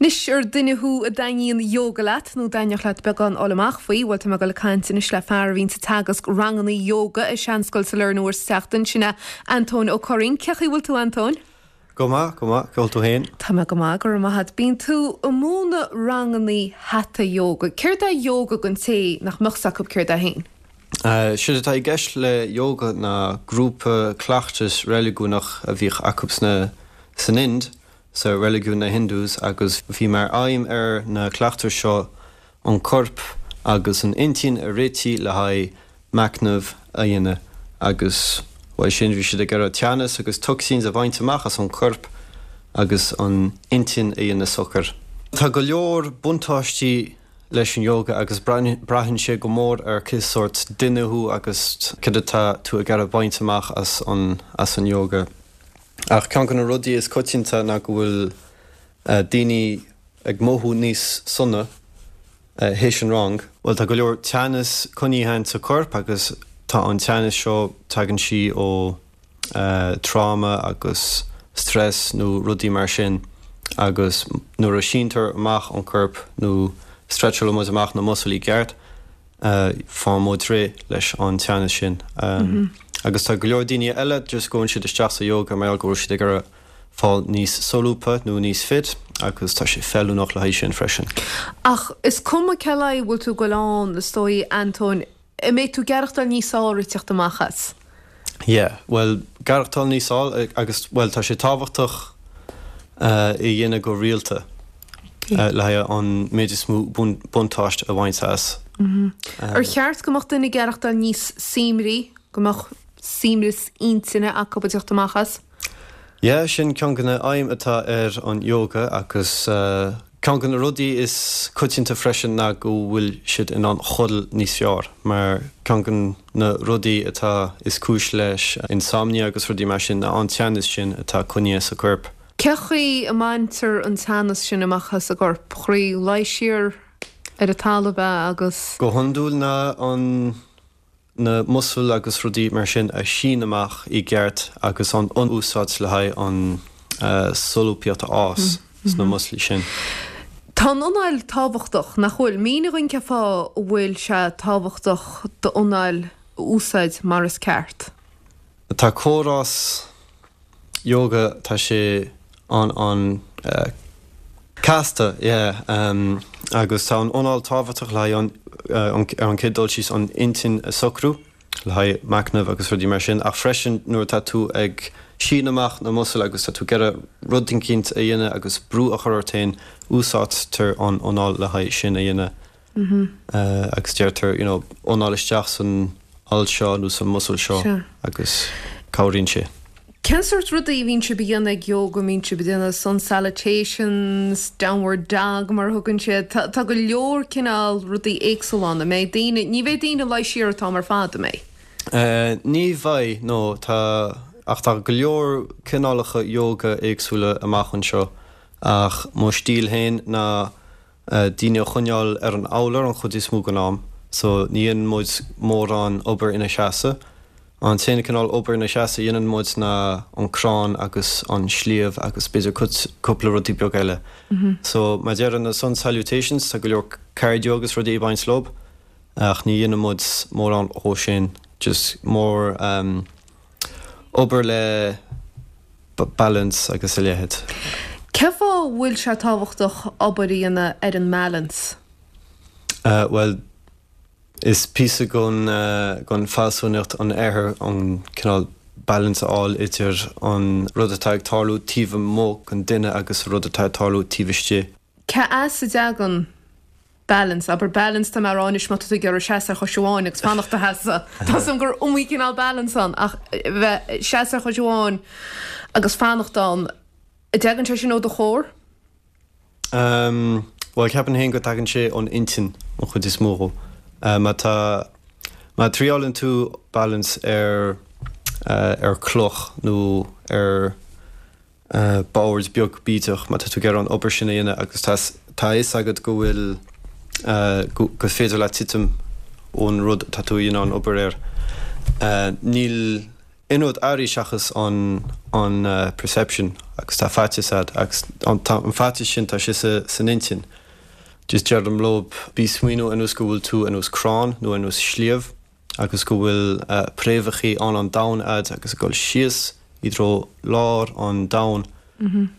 Anois, ar duine thú a dtaitníonn ióga leat, nó dtaitneodh leat beagán a fháil amach faoi, bhuel, tá mé ag dul ag caint anois le fear a bhíonns ag teagasc ranganna ióga i Seanscoil Sailearna uair sa tseachtain, sin é Antóin Ó Curraoin. Cén chaoi a bhfuil tú, Antóin? Go maith, go maith. Cén chaoi bhfuil tú féin? Tá mé go maith, go raibh maith agat. Bíonn tú ag múineadh ranganna Hatha Yoga. Céard é ióga don té nach mbeadh 's acu céard é féin? Séard atá i gceist le ióga ná grúpa cleachtas reiligiúnach a bhíodh acu sna, san Ind, sa reiligiún na Hindus agus bhí mar aidhm ar na cleachtais seo an corp agus an intinn a réitigh le haghaidh machnamh a dhéanamh agus uaidh sin bhí siad ag iarraidh teannas agus toxins a bhaint amach as an chorp agus an intinn a dhéanamh socair. Tá go leor buntáistí leis an yoga agus braitheann sé go mór ar cé sórt duine thú agus cad atá tú ag iarraidh baint amach as an as an yoga. Ach ceann de na rudaí is coitianta ná go bhfuil daoine ag mothú níos sona théis an rang. Bhuel, tá go leor teannas coinnithe sa corp agus tá an teannas seo, tagann sí ó tráma agus stress nó rudaí mar sin agus nuair a síntear amach an corp nó stretchálann muid amach na muscles i gceart, faigheann muid réidh leis an teannas sin. Agus tá go leor daoine eile just gabhann siad isteach sa yoga mar gheall go bhfuil siad ag iarraidh fáil níos solúbtha nó níos fit agus tá sé feiliúnach le haghaidh sin freisin. Ach is cuma cé le haghaidh a bhfuil tú ag goil ann, is dóigh, Antóin, an mbeidh tú ag aireachtáil níos fearr ag teacht amach as? Yeah, bhuel, aireachtáil níos fearr agus, bhuel, tá sé tábhachtach é a dhéanamh go rialta le haghaidh an méid is mó buntáiste a bhaint as. Ar cheart go mbeadh duine ag aireachtáil níos suaimhní, go mbeadh suaimhneas intinne acu ag teacht amach as? Yeah, sin ceann de na aidhm atá ar an yoga agus ceann de na rudaí is coitianta freisin ná go bhfuil siad in ann chodail níos fearr mar ceann de na rudaí atá is cúis leis insomnia agus rudaí mar sin ná an teannas sin atá coinnithe sa corp. Cé chaoi a mbaintear an teannas sin amach as an gcorp? Chroí luí siar ar an talamh é agus. Go hiondúil ná an na muscail agus rudaí mar sin a shíneadh amach i gceart agus an úsáid le haghaidh an solúbthacht a fhás sna muscail sin. Tá an anáil tábhachtach, nach bhfuil? Mínigh dhúinn cén fáth a bhfuil sé tábhachtach d'anáil a úsáid mar is ceart. Tá córás yoga, tá sé an an casta, yeah, agus tá an anáil tábhachtach le haghaidh an ar an chéad dul síos an intinn a socrú, le haghaidh machnamh agus rudaí mar sin, ach freisin nuair atá tú ag síneadh amach na muscail agus tá tú ag iarraidh rud eicínt a dhéanamh agus brú a chur ort féin, úsáidtear an anáil le haghaidh sin a dhéanamh. Agus deirtear, you know, anáil isteach san alt seo nó san muscle seo agus cabhraíonn sé. Cén sórt rudaí a bhíonn sibh a dhéanamh ag yoga? An mbíonn sibh ag déanamh sun salutations, downward dog mar a thugann siad? Tá, tá go leor cineál rudaí éagsúla ann. An mbeidh daoine, ní bheidh daoine ag luí siar an t-am ar fad, an mbeidh? Ní bheidh, no, tá, ach tá go leor cineálacha yoga éagsúla amach anseo ach mo stíl féin ná daoine a choinneáil ar an urlár an chuid is mó den am so ní dhéanann muid mórán obair ina seasamh. An t-aon cineál obair ina seasamh a dhéanann muid ná an crann agus an sliabh agus b'fhéidir cúpla rudaí beag eile. So mar deirim na sun salutations tá go leor cardio agus rudaí ag baint leo ach ní dhéanann muid mórán dhó sin just more obair le balance agus a leithéid. Cén fáth a bhfuil sé tábhachtach obair a dhéanamh ar an mbalance? Bhuel, is píosa den, den fealsúnacht an oirthir an cineál balance a fháil idir an rud atá ag tarlú taobh amuigh den duine agus an rud atá ag tarlú taobh istigh. Cé as a dtagann balance, abair balance tá mé a rá anois má tá tú ag iarraidh seasamh ar chois amháin agus fanacht i do sheasamh. Tá 's agam gur iomaí cineál balance ann ach bheith ag seasamh ar chois amháin agus fanacht ann, an dtagann sé sin ó do chór? Umm, bhuel ceapaim féin go dtagann sé ón intinn an chuid is mó dhó. Má tá, má triálann tú balance ar, ar cloch nó ar, bord beag bídeach má tá tú ag iarraidh an obair sin a dhéanamh agus tá tá a fhios agat go bhfuil go gur féidir leat titim ón rud atá tú a dhéanamh an obair air. Níl Aon rud airí seachas an an perception agus tá faitíos a'd agus an tá an faitíos sin tá sé sa san intinn. Just deirim leob bí smaoineamh ar nós go bhfuil tú ar nós crann nó ar nós sliabh agus go bhfuil préamhachaí ann an domhan a'd agus ag dul síos i dtreo lár an domhain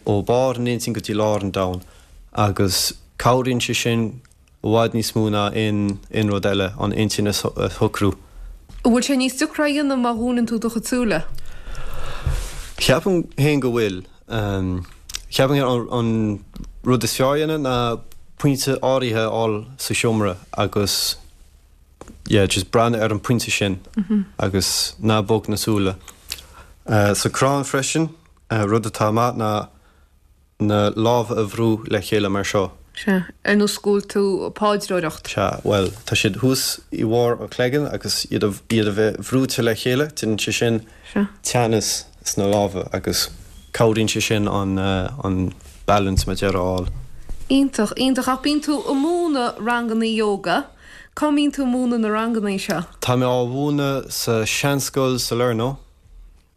ó barr an intinn go dtí lár an domhain agus cabhraíonn sé sin i bhfad níos mó ná aon aon rud eile, an intinn a shocrú. An bhfuil sé níos deacra a dhéanamh má dhúnann tú do chuid súile? Ceapaim féin go bhfuil. Ceapaim féin an rud is fearr a dhéanamh ná pointe áirithe a fháil sa seomra agus yeah just breathnú ar an pointe sin agus ná bog na súile. Sa crann freisin, rud atá maith ná na lámha a bhrú le chéile mar seo. Sea, ar nós go bhfuil tú ag paidreoireacht. Sea, bhuel, tá siad thuas i bharr an chloigeann agus iad a, iad a bheith bhrúite le chéile, déanann sé sin Sea. teannas sna lámha agus cabhraíonn sé sin an, an balance mar a déarfá a fháil. Iontach, iontach. Ach bíonn tú ag múineadh ranganna yoga. Cá mbíonn tú ag múineadh na ranganna seo? Tá mé á mhúineadh sa Seanscoil Salerno.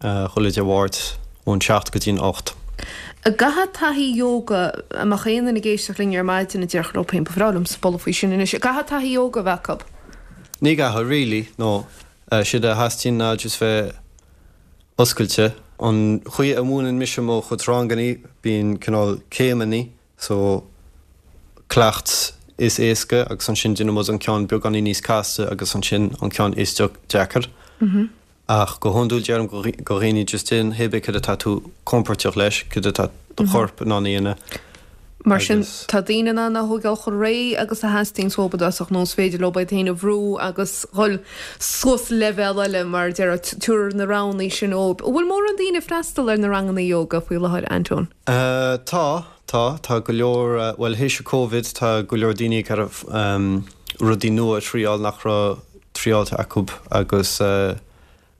Chuile Dé Mháirt ón 7 go dtí'n 8. An gcaithfidh taithí yoga, dá mbeadh aon duine ag éisteacht linn ar maidin a déarfadh leo féin, ba bhreá liomsa bualadh faoi sin anois, an gcaithfidh taithí yoga a bheith acu? Ní gcaithfidh, really, no. Séard a theastaíonn ná just bheith oscailte. An chaoi a múineann mise mo chuid rangannaí, bíonn cineál céimeannaí, so cleacht is éasca agus ansin déanann muid an ceann beagáinín níos casta agus ansin an ceann is deacair. Ach go hiondúil deirim go dhaoine just déan hé bith cad atá tú compordach leis, cad atá do chorp in ann a dhéanamh. Mar sin, tá daoine in ann a thógáil chomh réidh agus a theastaíonn uathu i dtosach nó is féidir leo iad féin a bhrú agus dhul suas leibhéal eile mar a déarfá, tabhair na roghanna sin dóibh. An bhfuil mórán daoine ag freastal ar na ranganna ióga faoi láthair, Antóin? Tá, tá. Tá go leor, bhuel théis an Covid tá go leor daoine ag iarraidh rudaí nua a thriáil nach raibh triáilte acu agus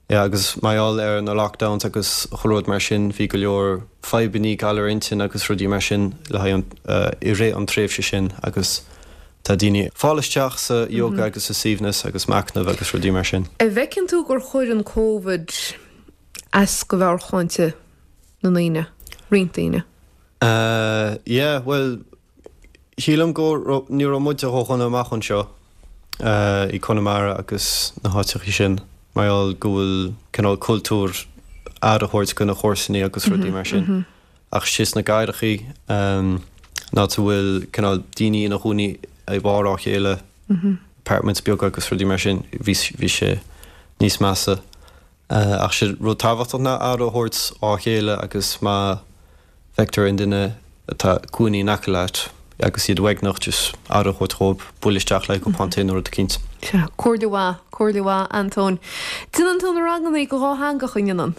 yeah agus mar gheall ar na lockdowns agus chuile rud mar sin bhí go leor fadhbannaí galar intinn agus rudaí mar sin le haghaidh an i rith an tréimhse sin agus tá daoine ag fáil isteach sa yoga agus sa suaimhneas agus machnamh agus rudaí mar sin. An bhfeiceann tú gur chuir an Covid as do mheabhairshláinte na ndaoine, roinnt daoine? Yeah bhuel Shílim go raibh, ní raibh muide ró-dhona amach anseo i Conamara agus na háiteachaí sin mar gheall go bhfuil cineál cultúr aire a thabhairt do na comharsanaí agus rudaí mar sin. Ach istigh sna cathrachaí, an áit a bhfuil cineál daoine ina gcónaí i mbarr á chéile, apartments beaga agus rudaí mar sin, bhí bhí sé níos measa. Ach sé rud tábhachtach ná aire a thabhairt á chéile agus má bhfeictear aon duine atá ina gcónaí in aice leat agus iad uaigneach just aire a thabhairt dhóibh, buail isteach le cupán tae nó rud eicínt. Sea, comhairle mhaith, comhairle mhaith, Antóin. Déanann tú na ranganna go dhátheangach, an ndéanann?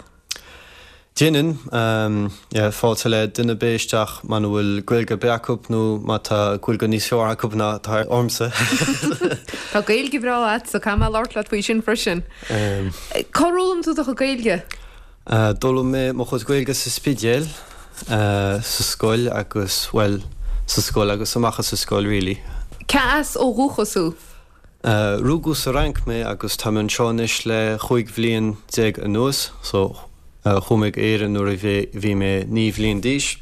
Déanann, yeah, fáilte le duine ar bith isteach muna bhfuil Gaeilge ar bith acu nó má tá Gaeilge níos fearr acu ná atá ormsa. Tá Gaeilge bhreá agatsa, caithfidh mé labhairt leat faoi sin freisin. Cár fhoghlaim tú do chuid Gaeilge? D'fhoghlaim mé mo chuid Gaeilge sa Spidéal, sa scoil agus, bhuel, sa scoil agus amach as an scoil really. Cé as ó dhúchas thú? Rugadh sa Fhrainc mé agus tá mé anseo anois le 15 bhliain anuas so chuaigh mé go Éirinn nuair a bhí mé 9 bhliain d'aois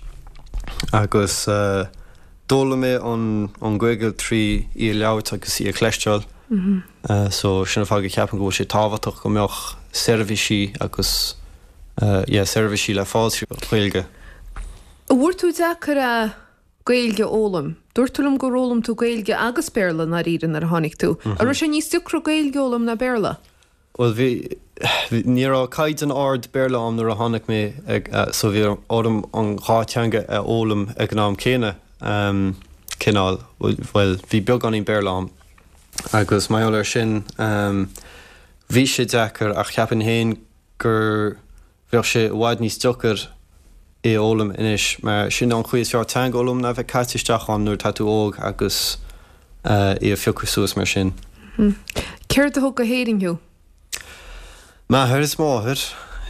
agus d'fhoghlaim mé an Ghaeilge trí í a labhairt agus í a chloisteáil so sin an fáth go ceapaim go bhfuil sé tábhachtach go mbeadh seirbhísí agus yeah seirbhísí le fáil trí Ghaeilge. An bhfuair tú deacair é Gaeilge a fhoghlaim. Dúirt tú liom gur fhoghlaim tú Gaeilge agus Béarla i ndáiríre nuair a tháinig tú. An raibh sé níos deacra Gaeilge a fhoghlaim ná Béarla? Bhuel bhí, ní raibh caighdeán ard Béarla a'm nuair a tháinig mé ag, so bhí orm an dhá teanga a fhoghlaim ag an am céanna, cineál, bhuel bhí beagáinín Béarla a'm agus mar gheall air sin bhí sé deacair ach cheapfainn féin gur Bheadh sé i bhfad níos deacair é a fhoghlaim anois mar sin an chaoi is fearr teanga a fhoghlaim ná bheith caite isteach ann nuair atá tú óg agus é a phiocadh suas mar sin. Céard a thug go hÉirinn thú? M'athair is máthair.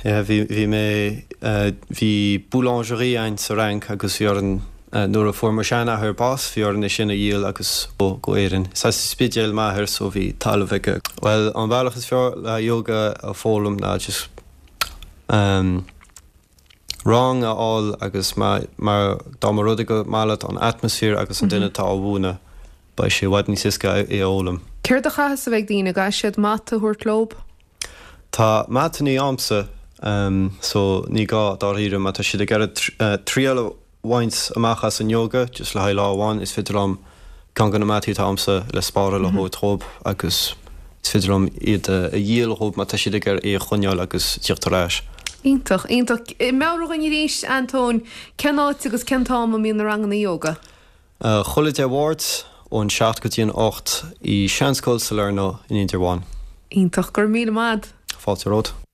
Yeah, bhí, bhí mé, bhí boulangerie a'inn sa Fhrainc agus bhí orainn, nuair a fuair mo sheanathair bás, bhí orainn é sin a dhíol agus go Éirinn. Is as an Spidéal m'athair so bhí talamh aige. Bhuel, an bealach is fearr le yoga a foghlaim ná just. Rang a fháil agus má, mar dá mba rud é gur maith leat an atmaisféar agus an duine atá á mhúineadh, beidh sé i bhfad níos éasca é a fhoghlaim. Céard a chaithfeas a bheith ag daoine? An gcaithfidh siad mata a thabhairt leob? Tá matannaí a'msa so ní gá dáiríre má tá siad ag iarraidh triail a bhaint amach as an yoga just le haghaidh lá amháin, is féidir liom ceann de na mataí atá a'msa le spáráil a thabhairt dhóibh agus is féidir liom iad a dhíol dhóibh má tá siad ag iarraidh é a choinneáil agus tíocht ar ais. Iontach, iontach. Meabhraigh dhúinn arís, Antóin, cén áit agus cén t-am a mbíonn na ranganna ióga? Chuile Dé Mháirt ón 7 go dtí an 8 i Seanscoil Salerno in Indreabhán. Iontach. Go raibh míle maith a'd. Fáilte romhat.